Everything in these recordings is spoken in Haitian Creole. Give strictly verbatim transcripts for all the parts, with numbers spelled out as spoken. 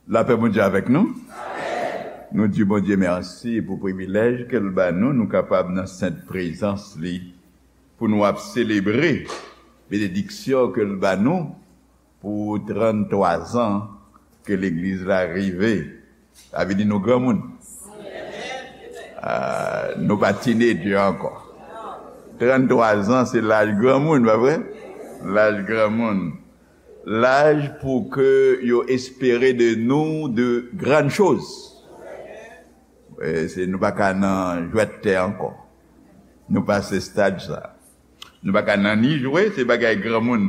Lapè Bondye avèk nou. Nou di Bondye mèsi pou privilèj ke l ba nou, nou kapab nan sent prezans li, pou nou ap selebre benediksyon ke l ba nou pou tranntwa zan ke legliz la rive. Sa vle di nou granmoun. Ah, nou pa tinedjè ankò. Tranntwa zan, se laj granmoun, pa vre? Laj granmoun. Laj pou ke yo espere de nou de grann choz. E, se, nou pa ka nan jwèt tè ankò. Nou pase stad sa. Nou pa ka nan ni jwe, se bagay granmoun.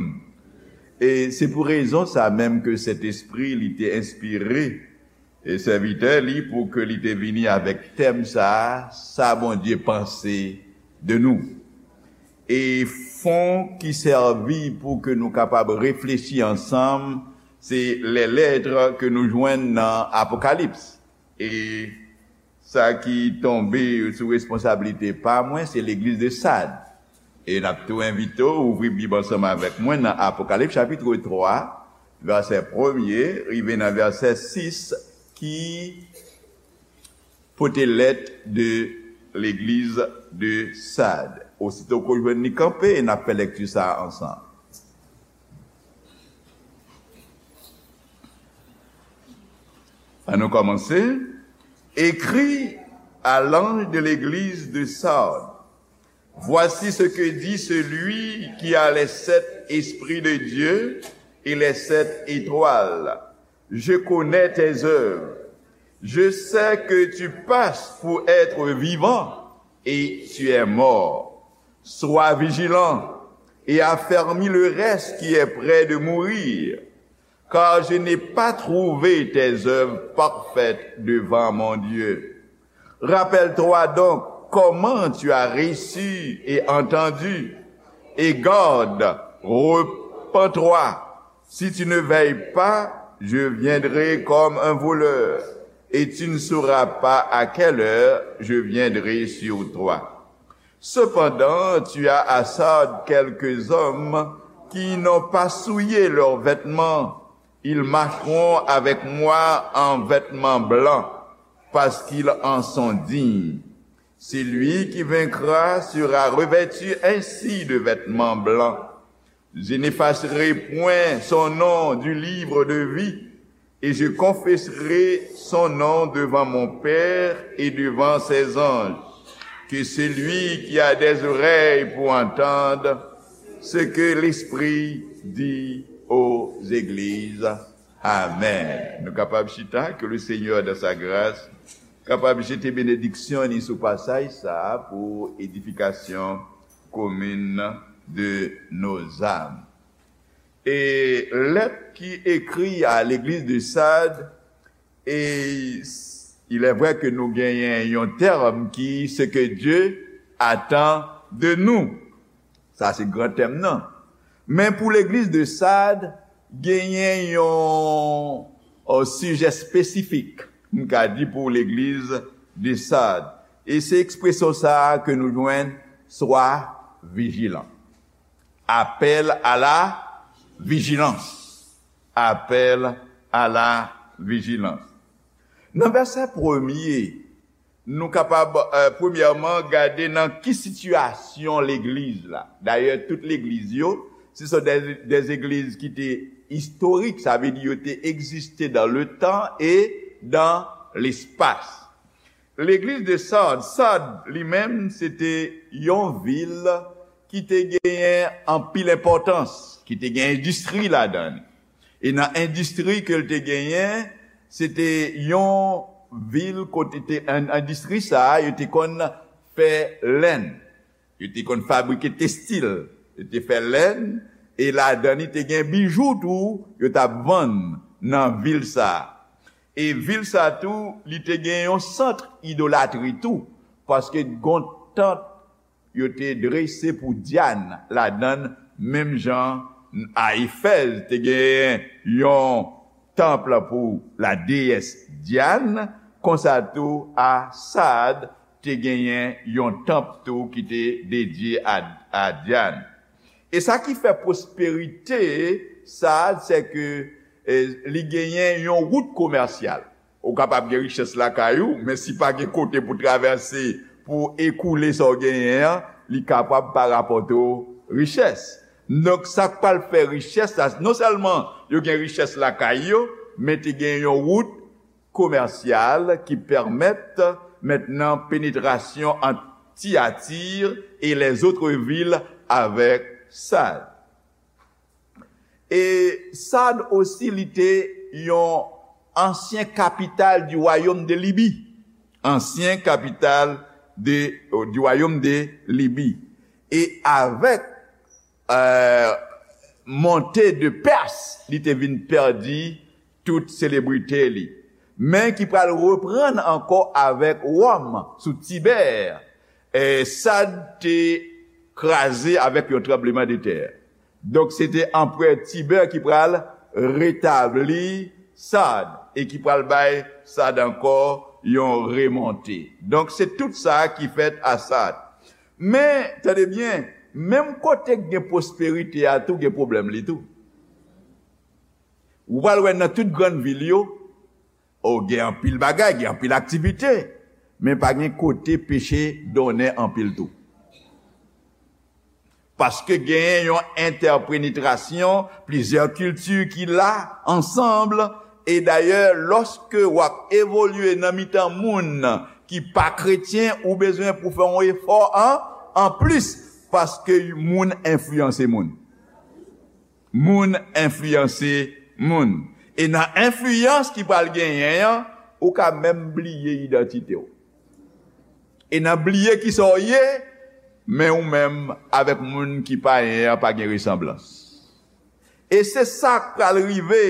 E se pou rezon sa menm ke Sentespri li te enspire e sèvitè li pou ke li te vini avèk tèm sa a, sa Bondye panse de nou. E fon ki sèvi pou ke nou kapab reflechi ansanm, se lè lèt ke nou jwenn nan Apokalips. E sa ki tonbe sou responsablite pa mwen, se legliz de Sad. E n ap tou envite w ouvri Bib ansanm avèk mwen nan Apokalips chapit twa, vèsè premye, rive nan vèsè sis, ki pote lèt de legliz de Sad. Osito ke w jwenn li kanpe, n ap fè lèkti sa a ansanm. Ann nou kòmanse. Écris à l'ange de l'église de Sardes. Voici ce que dit celui qui a les sept esprits de Dieu et les sept étoiles. Je connais tes œuvres. Je sais que tu passes pour être vivant et tu es mort. Sois vigilant et affermis le reste qui est près de mourir, car je n'ai pas trouvé tes œuvres parfaites devant mon Dieu. Rappelle-toi donc comment tu as reçu et entendu, et garde, repens-toi. Si tu ne veilles pas, je viendrai comme un voleur, et tu ne sauras pas à quelle heure je viendrai sur toi. Cependant, tu as à Sardes quelques hommes qui n'ont pas souillé leurs vêtements. Ils marcheront avec moi en vêtements blancs, parce qu'ils en sont dignes. Celui qui vaincra sera revêtu ainsi de vêtements blancs. Je n'effacerai point son nom du livre de vie, et je confesserai son nom devant mon Père et devant ses anges. Que celui qui a des oreilles pour entendre ce que l'Esprit dit aux églises. Amèn. Nou kapab chita, que le Seigneur, dans sa grâce, kapab jete benediksyon li sou pasaj sa a pou edifikasyon komin de nos âmes. E lèt ki ekri a legliz de Sad, e il est vrai que nou genyen yon tèm ki ce que Dieu attend de nous. Sa se gran tèm nan. Men pou legliz de Sad, genyen yon, yon sijè espesifik, m ka di pou legliz de Sad. E se ekspresyon sa a ke nou jwenn, sois vigilant. Appel à la vigilance. Appel à la vigilance. Nan vèsè premye, nou kapab, eh, premyèman, gade nan ki sitiyasyon legliz la. Dayè, tout legliz yo, se sont des, des églises ki te istorik, sa vle di yo te egziste dans le temps et dans l'espace. Legliz de Sad, Sad li menm, se te yon vil ki te genyen anpil enpòtans, ki te gen endistri ladan li. E nan endistri ke l te genyen, se te yon vil kote te, en-, endistri sa a, yo te konn fè lèn, yo te konn fabrike testil, yo te fè lèn, e ladan li te gen bijou tou, yo t ap vann nan vil sa a. E vil sa tou, li te gen yon sant idolatri tou, paske gon tant yo te drese pou Dyan ladan l, menm jan a Efèz te genyen yon tanp pou la déesse Diane, konsa tou a Sad te genyen yon tanp tou ki te dedye a, a Dyan. E sa ki fè pwosperite Sad, se ke, e, li genyen yon wout komèsyal. Ou kapab gen richès lakay ou, men si pa gen kote pou travèse, pou ekoule sa w genyen an, li kapab pa rapòte w richès. Donk, sa k pral fè richès la, non sèlman yo gen richès lakay yo, men te gen yon wout komèsyal ki pèmèt mentnan penetrasyon ant Tiyati e lèzòt vil avèk Sad. E Sad osi, li te yon ansyen kapital di wayòm de Libi. Ansyen kapital de, di wayòm de Libi. E avèk, e, monte de Pès, li te vin pèdi tout selebrite li. Men ki pral reprann ankò avèk Wòm sou Tibè. E Sad te kraze avèk yon tranblemanntè. Donk, se te anperè Tibè ki pral retabli Sad e ki pral bay Sad ankò yon remonte. Donk, se tout sa ki fèt a Sad. Men, tande byen, menm kote k gen pwosperite a tou, gen pwoblèm li tou. Ou pral wè nan tout grann vil yo, o, gen anpil bagay, gen anpil aktivite, men pa gen kote peche donnen anpil tou. Paske genyen yon entèpenetrasyon plizyè kilti ki la ansanm, e dayè, lòske w ap evolye nan mitan moun ki pa kretyen, ou bezwen pou fè yon efò an, anplis, paske moun enfliyanse moun. Moun enfliyanse moun. E nan enfliyans ki pral genyen an, ou ka menm bliye idantite w. E nan bliye kisa w ye, men ou menm avèk moun ki payen an pa gen resanblans. E se sa k pral rive,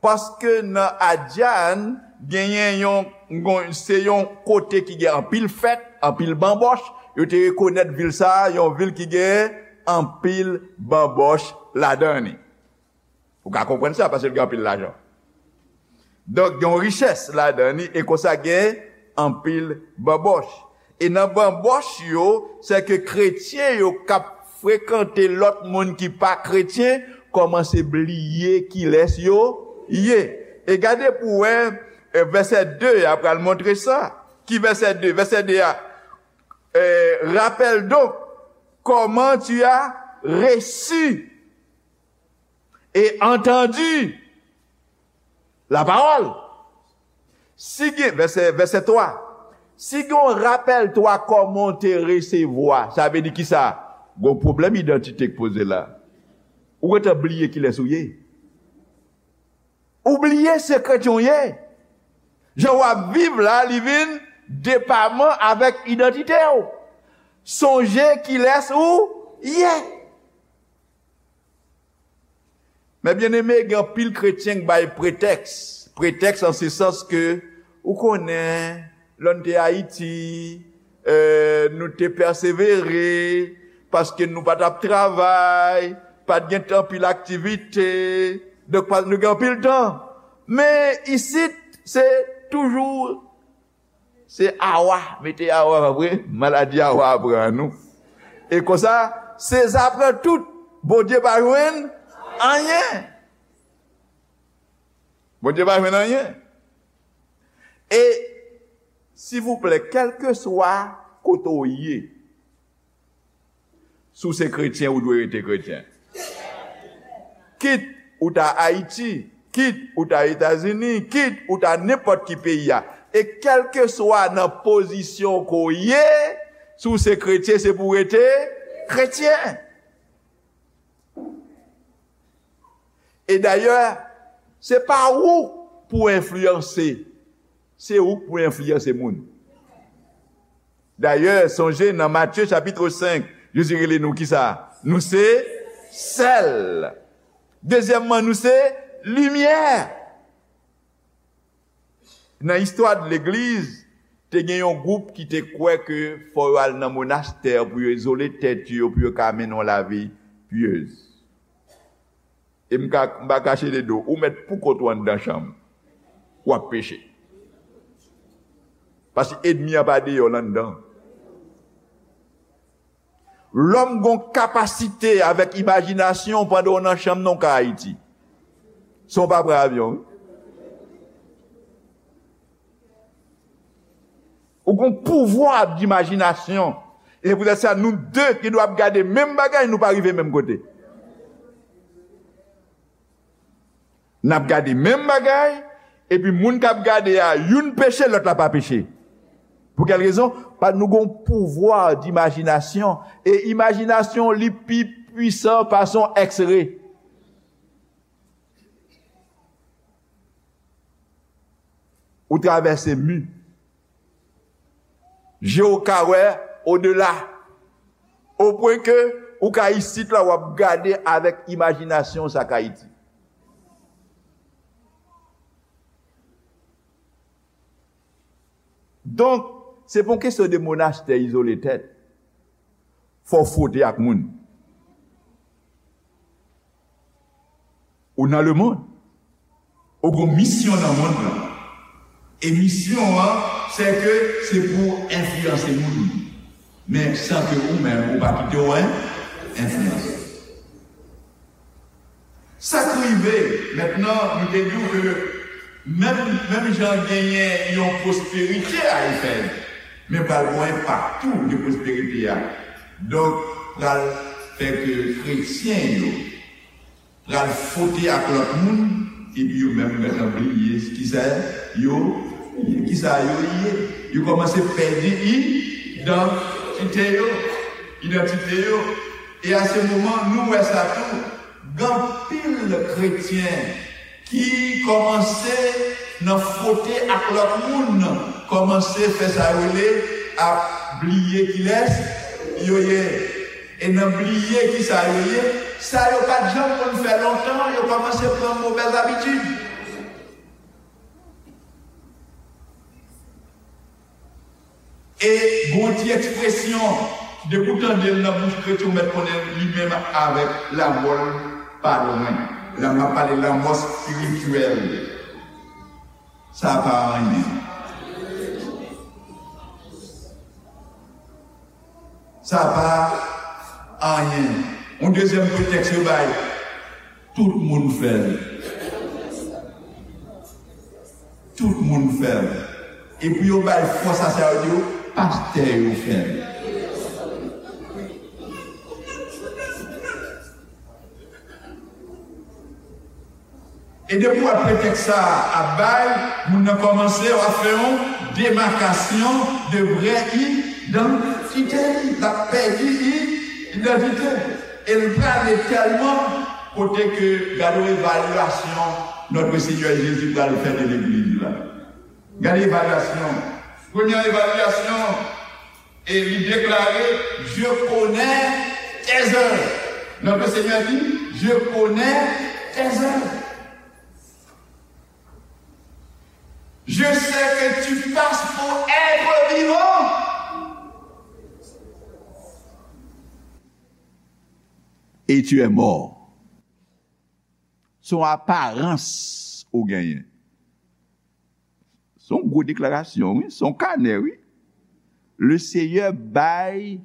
paske nan Adjàn, genyen yon, yon, se yon kote ki gen anpil fèt, anpil banbòch. Yo te rekonèt vil sa a, yon vil ki gen anpil banbòch ladan li. Ou ka konprann sa, paske l gen anpil lajan. Donk, gen yon richès ladan li, e konsa gen anpil banbòch. E nan banbòch yo, se ke kretyen yo k ap frekante lòt moun ki pa kretyen, kòmanse bliye kilès yo ye. E gade pou wè, e, vèsè de a pral montre sa. Ki vèsè de? Vèsè de a, e, rappelle donc comment tu as reçu et entendu la parole. Si gen, vèsè, vèsè twa, si gen yon rappelle-toi kòman w te resevwa, sa vle di kisa? Gon pwoblèm idantite k poze la. Ou gentan bliye kilès ou ye. Ou bliye se kretyen w ye. Jan w ap viv la, li vin depaman avèk idantite w. Sonje kilès ou ye. Men byeneme, gen anpil kretyen k bay pretèks. Pretèks an se sans ke, ou konnen, lè n te Ayiti, e, nou te pèsevere, paske nou pa t ap travay, pa t gen anpil aktivite, donk pa, nou gen anpil tan. Men isit, se toujou Se awa, mete awa, pa vre? Maladi awa a pran nou. E konsa, Seza pran tout. Bondye pa jwenn anyen. Bondye pa jwenn anyen. E, silvouplè, kèlkeswa kote w ye, si w se kretyen, ou dwe rete kretyen. Kit ou ta Ayiti, kit ou ta Etazini, kit ou ta nenpòt ki peyi a. E kèlkeswa nan pozisyon ke w ye, si w se kretyen, se pou w rete kretyen. E dayè, se pa ou pou enfliyanse, se ou k pou enfliyanse moun. Dayè, sonje nan Matye chapit senk, Jezi rele nou kisa? Nou se sèl. Dezyèmman, nou se limyè. Nan istwa de legliz, te gen yon gwoup ki te kwè ke fò yo al nan monastè pou yo izole tèt yo, pou yo ka mennen yon lavi pyez. E m ka, m pa kache de do, ou mèt pou kont ou anndan chanm, w ap peche. Paske ènmi an pa deyò, l anndan. Lòm gon kapasite avèk imajinasyon pandan w nan chanm nan w ka Ayiti. San w pa pran avyon, wi. Ou gon pouvwa dimajinasyon. E se poutèt sa, nou de gen dwa ap gade menm bagay, nou pa rive menm kote. N ap gade menm bagay, epi moun k ap gade a, youn peche, lòt la pa peche. Pou kèl rezon? Paske nou gon pouvwa dimajinasyon. E imajinasyon, li pi pwisan pase yon X-ray. Ou travèse mi. Je w ka wè odela. O pwen ke ou ka isit la, w ap gade avèk imajinasyon w sa k Ayiti. Donk, se pa yon kesyon de monastè izole tèt. Fò w fwote ak moun. Ou nan lemonn. Ou gon misyon nan mond lan. E misyon an, se ke se pou w enfliyanse moun. Men san ke ou menm, ou pa kite w en-, enfliyanse. Sa k rive, mentnan, nou te di w ke menm, menm jan genyen yon pwosperite a Efèz, men pral gon enpak tou de pwosperite a. Donk, pral fè ke kretyen yo pral fwote ak lòt moun, epi yo menm gentan bliye kisa yo, kisa yo ye. Yo kòmanse pèdi idantite yo, idantite yo. E a se moman, nou wè sa tou, gen anpil kretyen ki kòmanse nan fwote ak lòt moun, kòmanse fè sa yo rele ap bliye kilès yo ye. E nan bliye kisa yo ye, sa yo pa t janm konn fè lontan, yo kòmanse pran movèz abitid. E gon ti ekspresyon, depi w tande l nan bouch kretyen, ou mèt konnen li menm avèk lanmò l pa lwen. La m ap pale lanmò espirityèl. Sa pa anyen. Sa pa anyen. Yon dezyèm pretèks yo bay, tout moun fè l. Tout moun fè l. Epi yo bay fòs a sa, yo di yo, pastè yo fè l. E depi w wè pretèks sa a ap bay, moun nan kòmanse, w ap fè yon demakasyon de vrè idantite li. L ap pèdi i-, idantite. E l prale tèlman kote ke gade yon evalyasyon Notre Seigneur Jésus pral fè de legliz la. Gade evalyasyon. Premyè evalyasyon, e li deklare, "Je connais tes œuvres." Notre Seigneur dit, "Je connais tes œuvres. Je sais que tu passes pour être vivant. Et tu es mort." Se yon aparans ou genyen. Se yon gwo deklarasyon, wi. Se yon kanè, wi. Le Seyè bay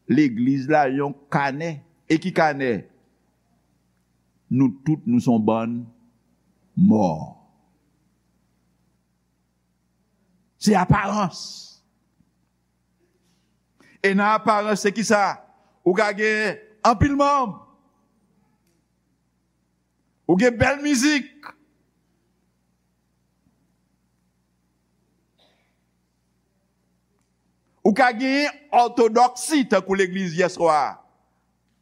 legliz la yon kanè. E ki kanè? Nou tout, nou se yon bann mò. Se aparans. E nan aparans, se kisa? Ou ka gen anpil manm. Ou gen bèl mizik. Ou ka gen òtodòksi tankou legliz yèswa a.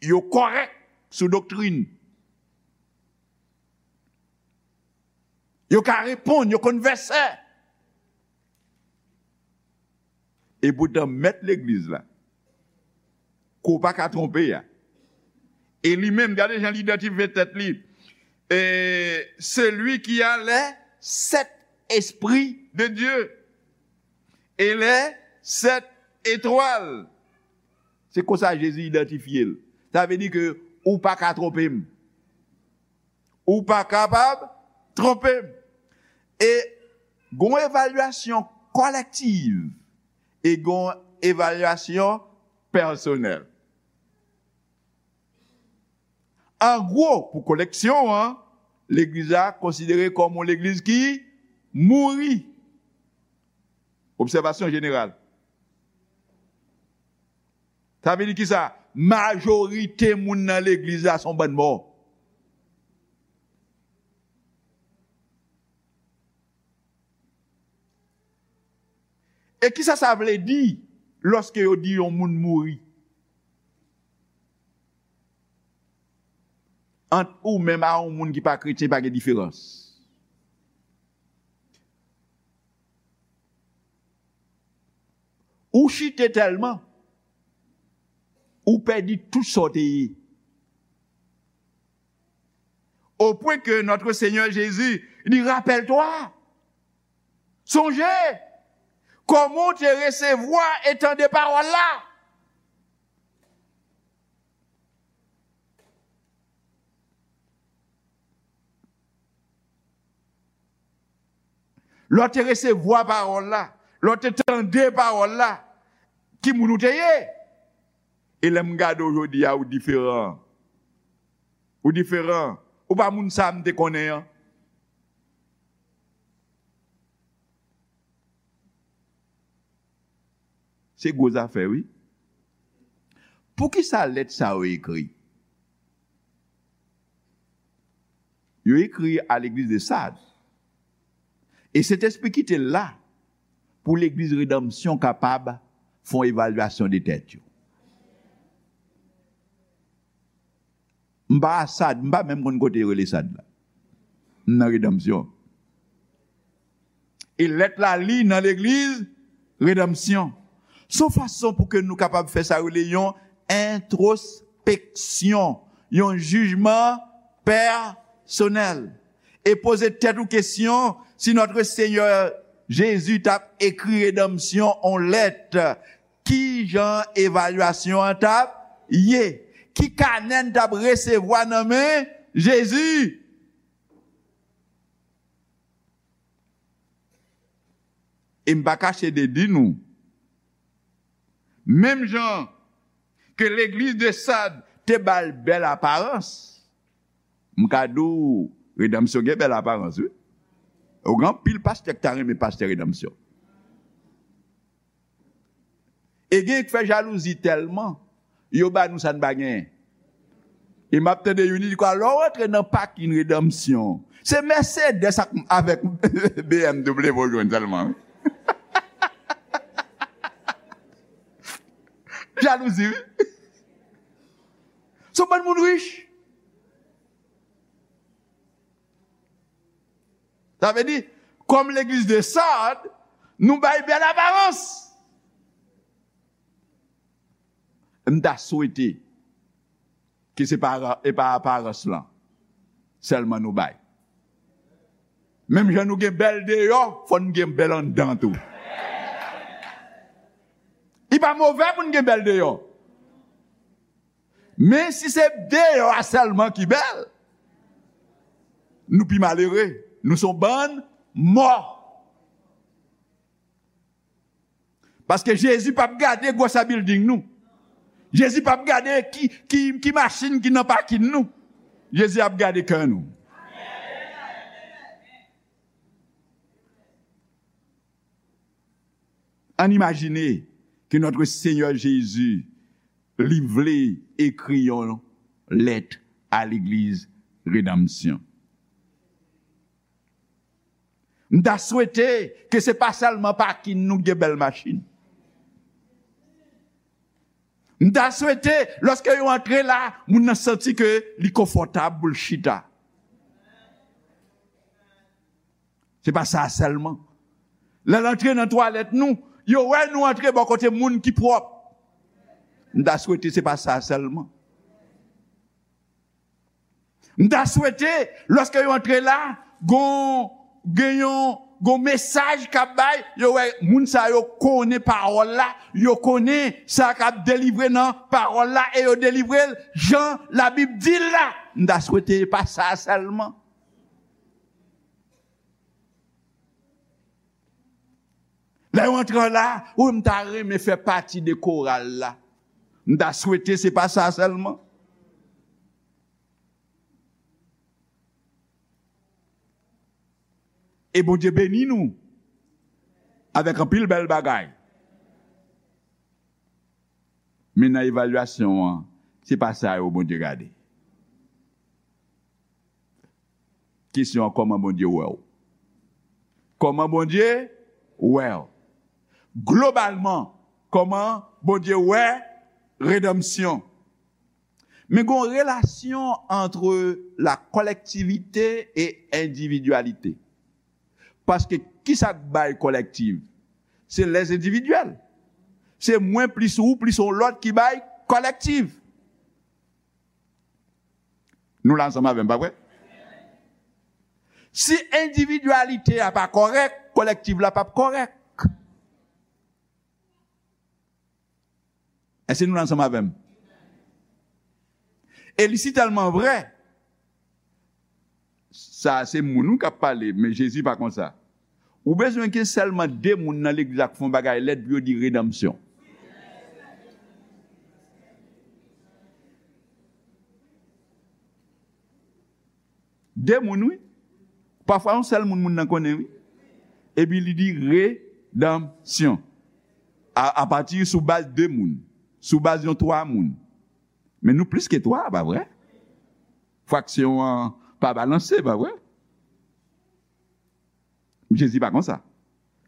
Yo kòrèk sou doktrin. Yo ka reponn, yo konn vèsè. Epoutan, mèt legliz la, ke w pa ka twonpe a, e li menm, gade jan li idantifye tèt li. Et celui qui a les sept esprits de Dieu et les sept étoiles. Se konsa Jezi idantifye l. Sa vle di ke ou pa ka twonpe m. Ou pa kapab twonpe m. E gon evalyasyon kolektiv e gon evalyasyon pèsonèl. An gwo, pou koleksyon an, legliz la konsidere kòm yon legliz ki mouri. Obsèvasyon jeneral. Sa vle di ki sa? Majorite moun nan legliz la se yon bann mò. E kisa sa vle di lòske yo di yon moun mouri? Ant ou menm a yon moun ki pa kretyen, pa gen diferans. Ou chite tèlman, ou pèdi tout sa w te ye. Au point que notre Seigneur Jésus dit, rappelle-toi, sonje, kòman w te resevwa e tande pawòl la. Lè w te resevwa pawòl la, lè w te tande pawòl la, ki moun ou te ye? E lè m gade w jodi a, ou diferan. Ou diferan. Ou pa moun sa a m te konnen an. Se gwo zafè, wi. Poukisa lèt sa yo ekri? Yo ekri a legliz de Sad. E Sentespri kite l la pou legliz Redanmsyon kapab fè yon evalyasyon de tèt yo. M pa a Sad, m pa menm konn kote yo rele Sad la. M nan Redanmsyon. E lèt la li nan legliz Redanmsyon. Se yon fason pou ke nou kapab fè sa yo rele yon entwospeksyon, yon jijman pèsonèl. E poze tèt ou kesyon, si Notre Seigneur Jésus t ap ekri Redanmsyon on lèt, ki jan evalyasyon an t ap ye? Ki kanè n t ap resevwa nan men Jezi? E m pa kache de di nou, menm jan ke legliz de Sad te ba l bèl aparans, m ka di w, Redanmsyon gen bèl aparans, wi. Ou gen anpil pastè ki ta renmen pastè Redanmsyon. E gen k fè jalouzi tèlman, yo ba nou sa n pa genyen. E m ap tande youn di kwa, lè w rantre nan pakin Redanmsyon, se Mercedes ak, avèk B M W w jwenn sèlman, wi. Jalouzi, wi. Se yon bann moun rich. Sa vle di, kòm legliz de Sad, nou bay bèl aparans. M ta swete ke se pa, e pa aparans lan sèlman nou bay. Menm jan nou gen bèl deyò, fò n gen bèl anndan tou. Li pa move pou n gen bèl deyò. Men si se deyò a sèlman ki bèl, nou pi malere. Nou se yon bann mò. Paske Jezi p ap gade gwosè bilding nou. Jezi p ap gade ki, ki, ki machin ki nan pakin nou. Jezi ap gade kè nou. Ann imajine ke Notre Seigneur Jésus, li vle ekri yon lèt a legliz Redanmsyon. M ta swete ke se pa sèlman pakin nou ki gen bèl machin. M ta swete, lòske yo antre la, moun nan santi ke li konfòtab pou l chita. Se pa sa sèlman. Lè l antre nan twalèt nou, yo wè nou antre bò kote moun ki pwòp. M ta swete se pa sa sèlman. M ta swete, lòske yo antre la, gon, gen yon, gon mesaj k ap bay, yo wè moun sa yo konnen pawòl la, yo konnen sa k ap delivre nan pawòl la, e yo delivre l jan Labib di l la. M ta swete pa sa sèlman. Lè yo antre la, wi, m ta renmen fè pati de koral la. M ta swete se pa sa sèlman. E Bondye beni nou avèk anpil bèl bagay. Men nan evalyasyon an, se pa sa yo Bondye gade. Kesyon an, kòman Bondye wè w? Kòman Bondye wè w? Globalman, kòman Bondye wè redanmsyon? Men gen yon relasyon ant la kòlèktivite e endividyalite. Paske kisa k bay kòlèktiv? Se lèzendividyèl. Se mwen plis ou plis yon lòt ki bay kòlèktiv. Nou la ansanm avè m, pa vre? Si endividyalite a pa kòrèk, kòlèktiv la p ap kòrèk. Èske nou la ansanm avè m? E li si tèlman vrè, sa se moun wi k ap pale, men Jezi pa konsa. Ou bezwen gen sèlman de moun nan legliz la k fè yon bagay lèd pou yo di redanmsyon. De moun, wi. Pafwa, yon sèl moun, moun nan konnen, wi. Epi li di redanmsyon. A, apati sou baz de moun. Sou baz yon twa moun. Men nou plis ke twa, pa vre? Fraksyon an pa balanse, pa vre? Jezi pa konsa.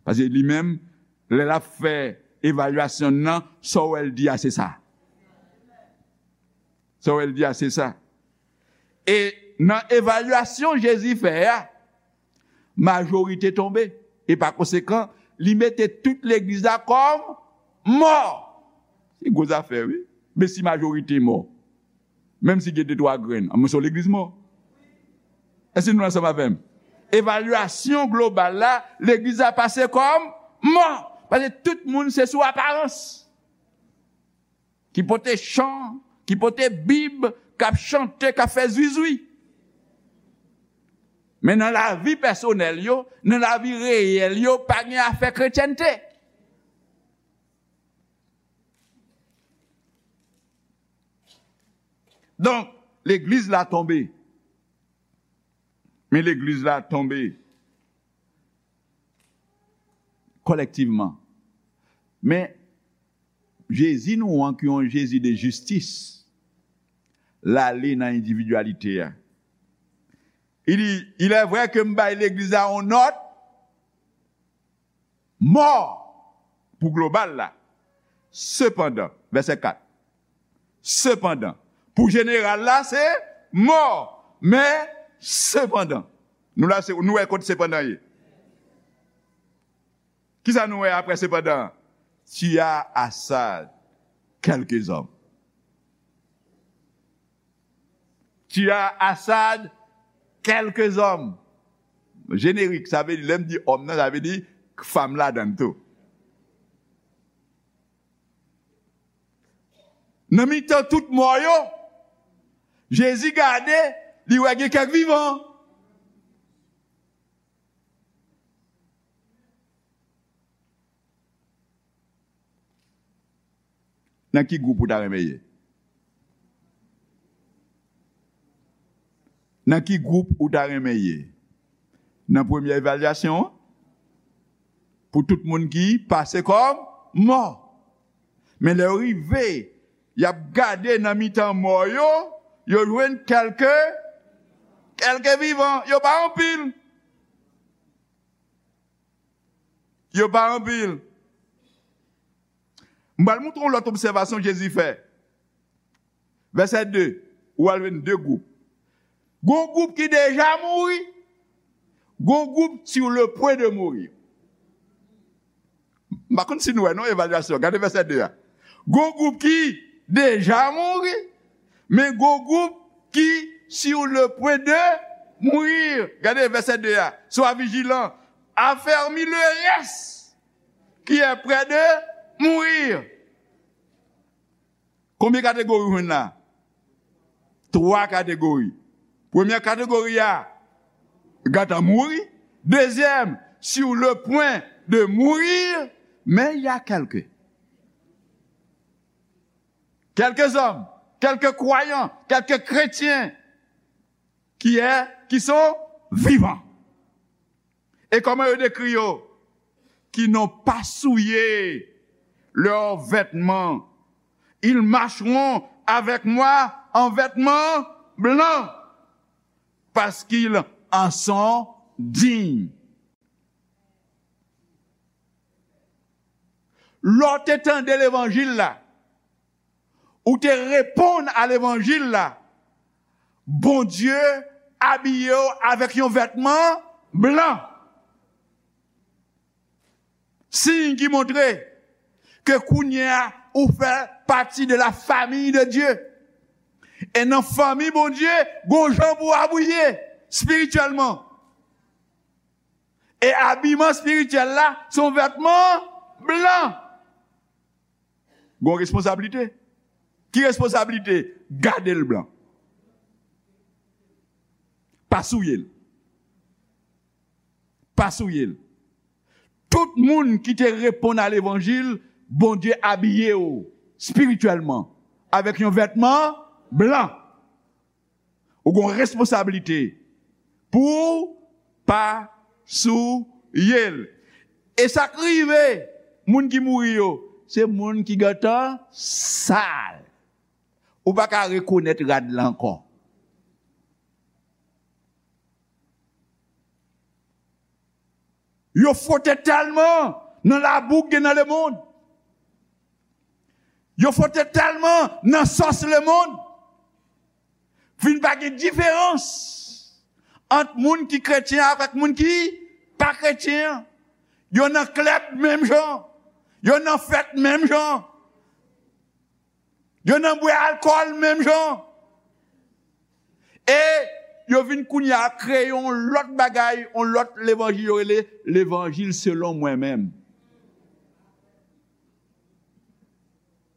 Paske li menm, lè l ap fè evalyasyon nan, sa w wè l di a, se sa. Sa w wè l di a, se sa. E nan evalyasyon Jezi fè a, majorite tonbe. E pa konsekan, li mete tout legliz la kòm mò. Se gwo zafè, wi. Men si majorite mò, menm si gen de twa grenn, anmwens yon legliz mò. Èske nou ansanm avè m? Evalyasyon global la, legliz la pase kòm mò. Paske tout moun se sou aparans. Ki pote chan, ki pote Bib, k ap chante, k ap fè zwizwi. Men nan lavi pèsonèl yo, nan lavi reyèl yo, pa gen afè kretyènte. Donk, legliz la tonbe. Men legliz la tonbe kòlèktivman. Men Jezi nou an, ki yon Jezi de jistis, l ale nan endividyalite a. Li di, il est vrai que m bay legliz la yon nòt mò pou global la. Sepandan, vèsè kat. Sepandan, pou jeneral la, se mò. Men, sepandan, nou la, se, nou wè kot sepandan ye. Kisa nou wè apre sepandan? Tu as à Assad quelques hommes. Tu as à Assad quelques hommes. Jenerik, sa vle di, lè m di òm nan, sa vle di fanm ladan l tou. Nan mitan tout mò yo, Jezi gade, li wè gen kèk vivan. Nan ki gwoup ou ta renmen ye? Nan ki gwoup ou ta renmen ye? Nan premye evalyasyon an? Pou tout moun ki pase kòm mò. Men lè yo rive, y ap gade nan mitan mò yo, yo jwenn kèlke, kèlke vivan. Yo pa anpil. Yo pa anpil. M pral montre w lòt obsèvasyon Jezi fè. Vèsè de, ou al jwenn de gwoup. Gon gwoup ki deja mouri, gon gwoup sur le point de mourir. M pa konn si nou wè non evalyasyon. Gade vèsè de a. Gon gwoup ki deja mouri, men gon gwoup ki sur le point de mourir. Gade vèsè de a. Sois vigilant, affermis le reste qui est près de mourir. Konbyen kategori w jwenn la? Twa kategori. Premyè kategori a, gentan mouri. Dezyèm, sur le point de mourir, men il y a quelques, quelques hommes, quelques croyants, quelques chrétiens qui est, qui sont vivants. Et comment il décrit, oh, qui n'ont pas souillé leurs vêtements. Ils marcheront avec moi en vêtements blancs, parce qu'ils en sont dignes. Lè w te tande levanjil la, ou te reponn a levanjil la, Bondye abiye w avèk yon vètman blan. Siy ki montre ke kounye a ou fè pati de la famille de Dieu. E nan fanmi Bondye, gon jan pou w abiye espirityèlman. E abiman espirityèl la, se yon vètman blan. Gon responsablite. Ki responsablite? Gade l blan. Pa souye l. Pa souye l. Tout moun ki te reponn a levanjil, Bondye abiye w espirityèlman avèk yon vètman blan. Ou gon responsablite pou w pa souye l. E sa k rive moun ki mouri yo, se moun ki gentan sal. Ou pa ka rekonèt rad la ankò. Yo fwote tèlman nan labou k gen nan lemonn. Yo fwote tèlman nan sòs lemonn. Vin pa gen diferans ant moun ki kretyen avèk moun ki pa kretyen. Yo nan klèb menm jan. Yo nan fèt menm jan. Yo nan bwè alkòl menm jan. E yo vin kounye a kreye yon lòt bagay, yon lòt levanjil yo rele levanjil selon mwen menm.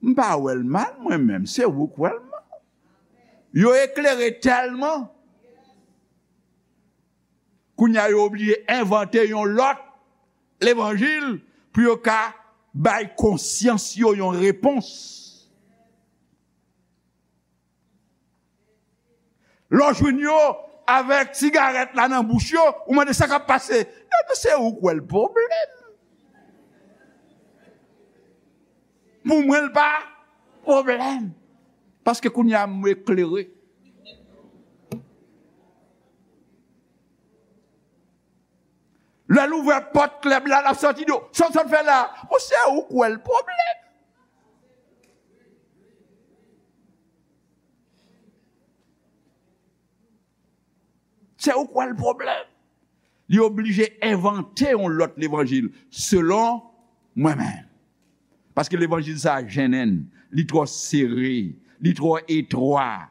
M pa wè l mal mwen menm, se ou k wè l mal. Yo eklere tèlman. Kounye a yo oblije envante yon lòt levanjil pou yo ka bay konsyans yo yon repons. Lè w jwenn yo avèk sigarèt la nan bouch yo, ou mande sa k ap pase. Epi se ou k wè l pwoblèm. Pou mwen, l pa pwoblèm. Paske kounye a m eklere. Lè l ouvè pòt klèb la, l ap sòti di w, "Sa w sot fè la?" Bon, se ou k wè l pwoblèm. Se ou k wè l pwoblèm. Li oblije envante yon lòt levanjil, selon mwen menm. Paske levanjil sa a jennen, li twò sere, li twò etwa.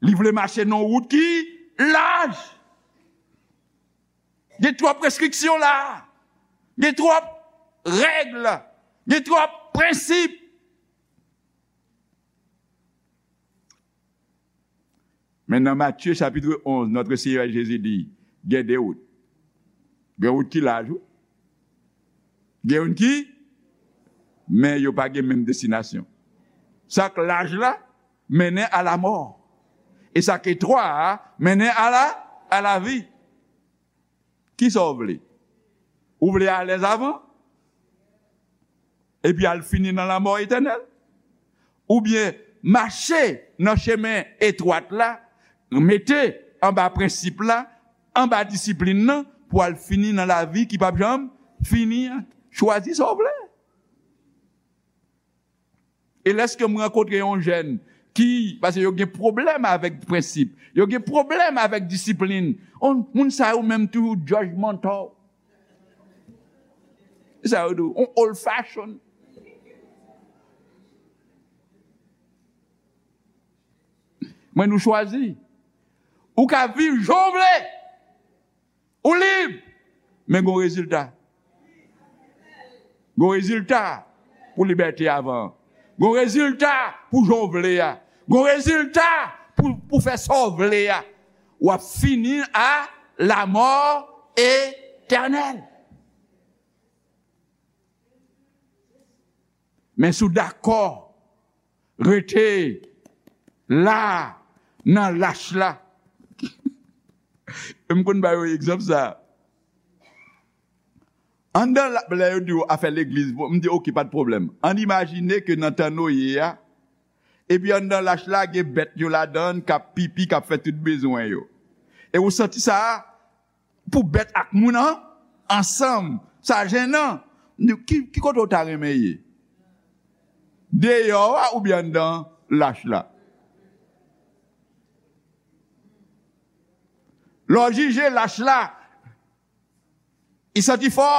Li vle mache nan yon wout ki laj. Gen twòp restriksyon la. Gen twòp règ. Gen twòp prensip. Men nan Matye chapitre onze, notre Seigneur Jésus di, gen de wout. Gen wout ki laj, wi. Gen youn ki, men yo pa gen menm destinasyon. Sa k laj la, mennen a lamò. E sa k etwa a, mennen a la, a lavi. Kisa w vle? Ou vle alèz avan? Epi al fini nan lanmò etènèl? Oubyen mache nan chemen etwat la, mete anba prensip la, anba disiplin nan, pou al fini nan lavi ki p ap janm fini an? Chwazi sa w vle. E lèske m rankontre yon jèn ki, paske yo gen pwoblèm avèk prensip, yo gen pwoblèm avèk disiplin. On, moun sa yo menm toujou judgmental. Sa yo di w, on old fashion. Mwen, nou chwazi. Ou ka viv jan w vle. Ou lib, men gon rezilta. Gon rezilta pou libète avan. Gon rezilta pou jan w vle a. Gon rezilta pou, pou fè sa w vle a. W ap fini a lamò etènèl. Men si w dakò rete la nan lach la, E m konn ba yo egzanp sa. Anndan la, lè yo di w afè legliz, bon, m di, "Oke, pa t pwoblèm." Ann imajine ke nan tan Noye a, epi anndan lach la, gen bèt yo ladan l k ap pipi, k ap fè tout bezwen yo. E ou santi sa, pou bèt ak moun an, ansanm, sa jennen. Ki, ki kote w ta renmen ye? Deyò a oubyen anndan lach la? Lè w jije lach la, li santi fò.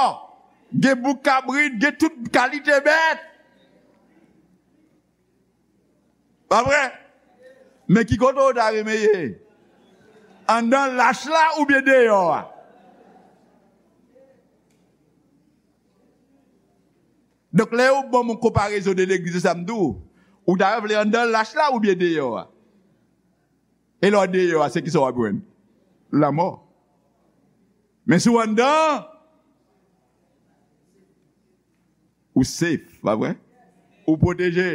Gen bouk kabrit, gen tout kalite bèt. Pa vre? Men ki kote w ta renmen ye? Anndan lach la oubyen deyò a? Donk, lè yo ban m yon konparezon de legliz, se sa m di w. Ou ta vle anndan lach la oubyen deyò a? E lè w deyò a, se ki sa w ap jwenn? Lanmò. Men si w anndan, ou safe, pa vre? Ou pwoteje.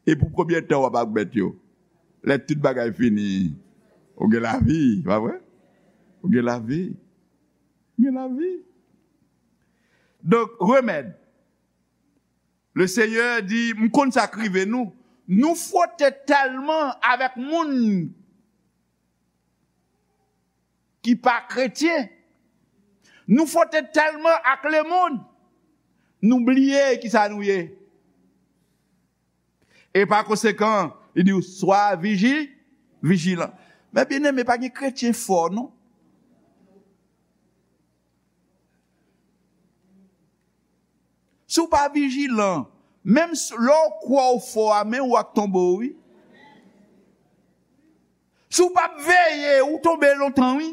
E pou konbyen tan w ap ak bèt yo? Lè tout bagay fini, ou gen lavi, pa vre? Ou gen lavi. Ou gen lavi. Donk, remèd. Le Seigneur di, m konn sa k rive nou. Nou fwote tèlman avèk moun ki pa kretyen. Nou fwote tèlman ak lemonn, nou bliye kisa nou ye. E pa konsekan, li di w, "Swa viji, vijilan." Men byeneme, pa gen kretyen fò, non. Si w pa vijilan, menm s-, lè w kwè w fò a, men w ak tonbe w, wi. Si w p ap veye, ou tonbe lontan, wi.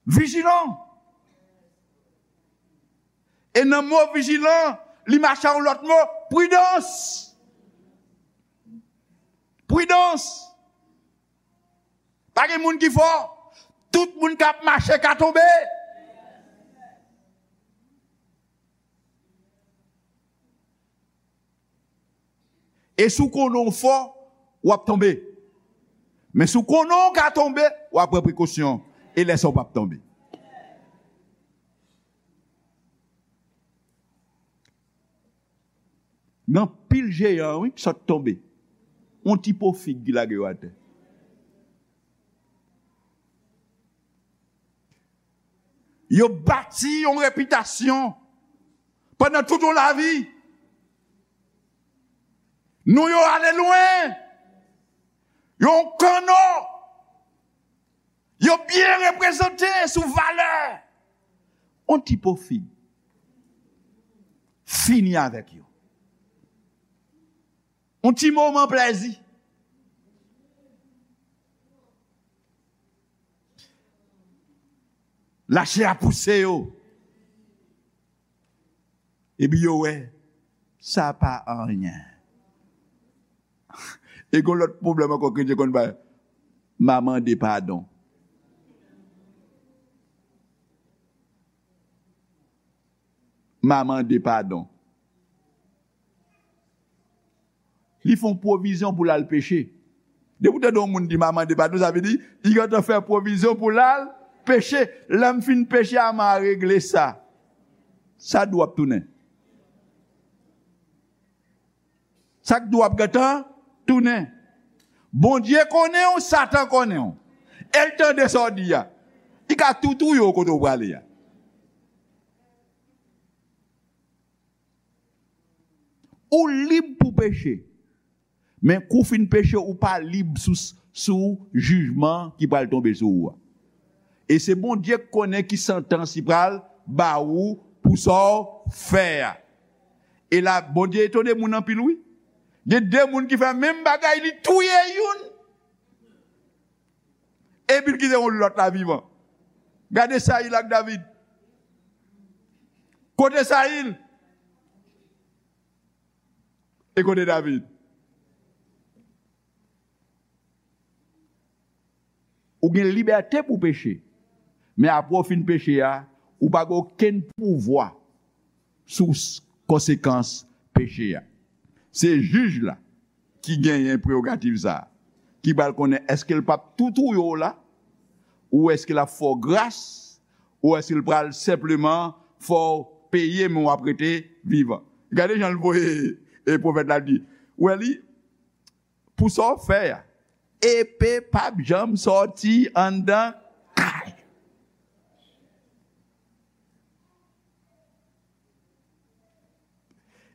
Vijilan. E nan mo vijilan, li mache a yon lòt mo, pridans. Pridans. Pa gen moun ki fò. Tout moun k ap mache ka tonbe. E si w konnen w fò, w ap tonbe. Men si w konnen w ka tonbe, w ap pran prekosyon. E lè sa w p ap tonbe. Gen anpil jeyan, wi, ki sot tonbe. Yon ti po fig ki lage yo atè. Yo bati yon repitasyon pandan tout yon lavi. Non yo ale lwen. Yo yon kanno. Yo byen reprezante sou valè. Yon ti po fig. Fini avèk yo. Yon ti moman plèzi. Lachè a pouse yo. Epi yo wè, sa pa anyen. E gon lòt pwoblèm ankò kretyen konn bay, m a mande padon. M a mande padon. Li fè yon pwovizyon pou l al peche. Depi w tande yon moun di, "M a mande padon," sa vle di, li gentan fè pwovizyon pou l al peche. "Lè m fin peche a, m a regle sa." Sa dou ap tounen. Sa k dou ap gentan tounen. Bondye konnen w, Satan konnen w. E l tande sa w di a. Li ka tou touye w kote w prale a. Ou lib pou peche. Men kou w fin peche, ou pa lib sou, sou jijman ki pral tonbe sou ou a. E se Bondye k konnen ki santans li pral ba ou pou sa w fè a. E la, Bondye etone moun anpil, wi. Gen de moun ki fè menm bagay, li touye youn. Epi l kite yon lòt la vivan. Gade Sayil ak David. Kote Sayil? E kote David? Ou gen libète pou peche. Men apre w fin peche a, ou pa gen okenn pouvwa sou s-, konsekans peche a. Se jij la ki genyen prewogativ sa a. ki pral konnen èske l p ap tou touye w la, ou èske l ap fè w gras, ou èske l pral senpleman fè w peye, men w ap rete vivan. Gade jan l voye, e pwofèt la di, ou wè li, pou sa w fè a, epe p ap janm sòti anndan kay.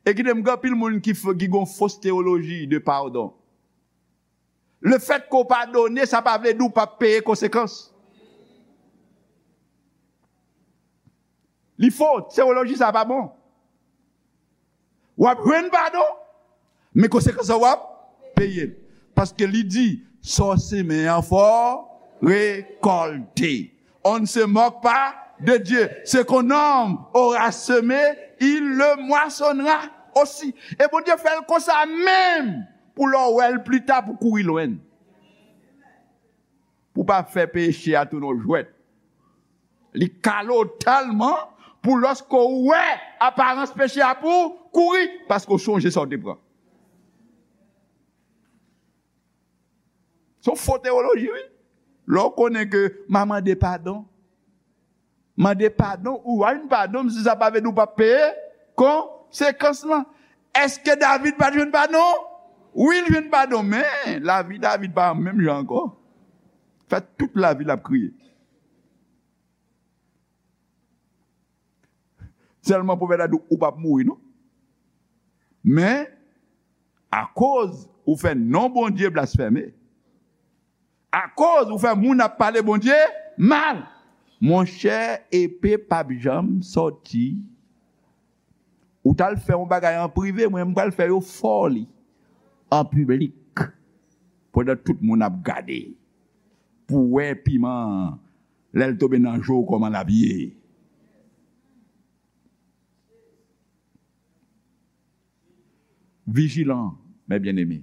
E kite m gen anpil moun ki, f- ki gon fos teyoloji de padon. Lefèt ke w padone, sa pa vle di w p ap peye konsekans. Li fo, teyoloji sa pa bon. W ap jwenn padon, men konsekans lan w ap peye l. Paske li di, sa w semen an fò w rekòlte. On ne se moque pas de Dieu. Ce qu'un homme aura semé, il le moissonnera aussi. E Bondye fè l konsa menm pou lè w wè l pli ta pou kouri lwen l. Pou pa fè peche a tounen w jwèt. Li kale w tèlman pou lòske w wè aparans peche a pou kouri, paske w sonje sa w te pran. Se yon fo teyoloji, wi. Lè w konnen ke m a mande padon, mande padon, ou a jwenn padon, men sa pa vle di w p ap peye konsekans lan. Èske David pa t jwenn padon? Wi, l jwenn padon, men lavi David pa menm jan ankò. Fè tout lavi l ap kriye. Sèlman pwofèt la di w, ou p ap mouri, non. Men, akoz ou fè non Bondye blasfème, akoz ou fè moun ap pale Bondye mal, monchè, epe p ap janm sòti. Ou t al fè yon bagay an prive, mwen, m pral fè yo fè w li an piblik, pandan tout moun ap gade, pou w wè piman an, lè l tonbe nan je w, kòman l ap ye. Vijilan, mes bien-aimés.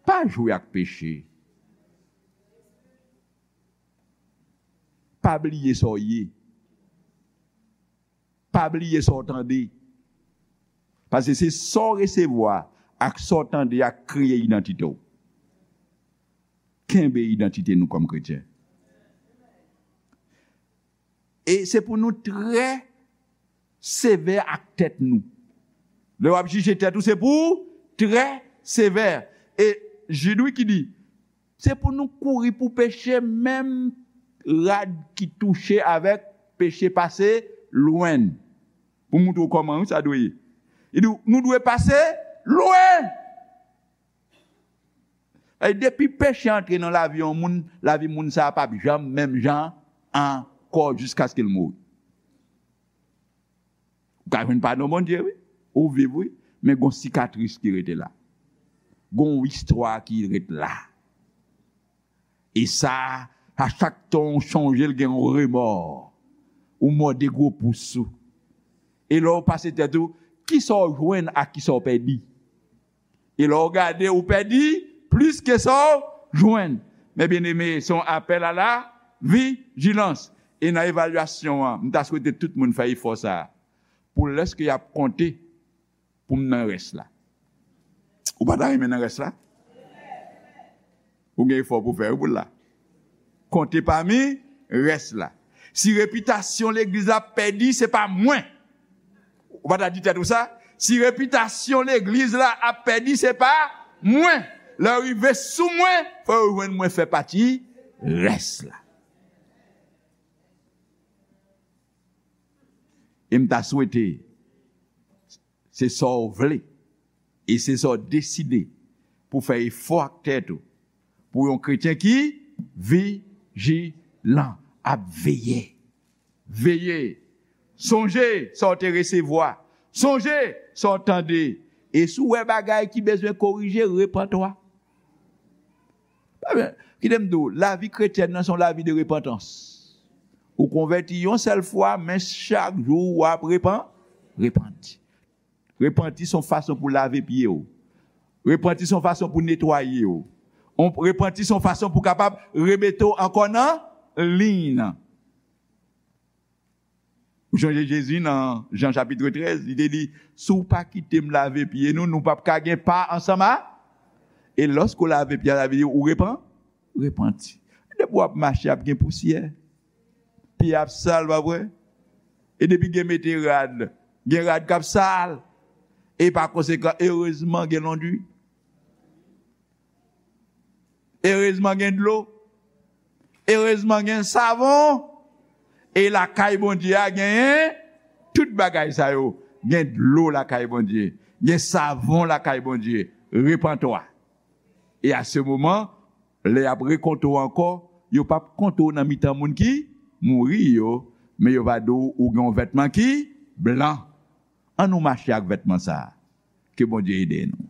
Pa jwe ak peche. Pa bliye sa w ye. Pa bliye sa w tande. Paske se sa w resevwa ak sa w tande a k kreye idantite w. Kenbe idantite nou kòm kretyen. E se pou nou trè sevè ak tèt nou. Lè w ap jije tèt ou, se pou w trè sevè. E Jid, wi, ki di, se pou nou kouri pou peche, menm rad ki touche avèk peche pase lwen n. Pou montre w kòman, wi, sa dwe ye. Li di, nou dwe pase lwen. E depi peche antre nan lavi yon moun, lavi moun sa a p ap janm menm jan ankò jiskaske l mouri. Ou ka jwenn padon Bondye, wi. Ou viv, wi. Men gon sikatris ki rete la. Gon istwa ki ret la. E sa, a chak tan w chonje l, gen yon remò. Ou mòde gwo pous ou. E lè w pase tèt ou, kisa w jwenn ak kisa w pèdi? E lè w gade, ou pèdi plis ke sa w jwenn. Men byeneme, se yon apèl a la vijilans. E nan evalyasyon an, m ta swete tout moun fè efò sa a. Pou lèske y ap konte, pou m nan rès la. Ou pa ta renmen nan rès la? Ou gen efò pou fè, wi, pou l la. Konte pami rès la. Si repitasyon legliz la ap pèdi, se pa mwen. Ou pa ta di tèt ou sa? Si repitasyon legliz la ap pèdi, se pa mwen. Lè w rive sou mwen, fò yo jwenn mwen fè pati rès la. E m ta swete, se sa w vle, e se sa w deside pou fè efò ak tèt ou, pou yon kretyen ki vijilan, ap veye. Veye. Sonje sa w te resevwa. Sonje sa w tande. E si w wè bagay ki bezwen korije, repant ou a. Ebyen, kite m di w, lavi kretyèn nan se yon lavi de repantans. Ou konvèti yon sèl fwa, men chak jou w ap repan, repanti. Repanti se yon fason pou lave pye w. Repanti se yon fason pou netwaye w. On, repanti se yon fason pou kapab remete w ankò nan liy nan. Ou sonje Jezi nan Jan chapit trèz, li te di, si w pa kite m lave pye nou, nou p ap ka gen pa ansanm a. E lòske w lave pye a, sa vle di ou repan, repanti. Depi w ap mache, ap gen pousyè. Pye ap sal, pa vre? E depi gen mete rad, gen rad k ap sal. E pa konsekan, erezman gen londwi. Erezman gen dlo. Erezman gen savon. E lakay Bondye a genyen tout bagay sa yo. Gen dlo lakay Bondye. Gen savon lakay Bondye. Repantwa. E a se moman, lè y ap rekonte w ankò, yo p ap konte w nan mitan moun ki mouri yo, men yo va di w ou gen yon vètman ki blan. An nou mache ak vètman sa a. Ke Bondye ede nou.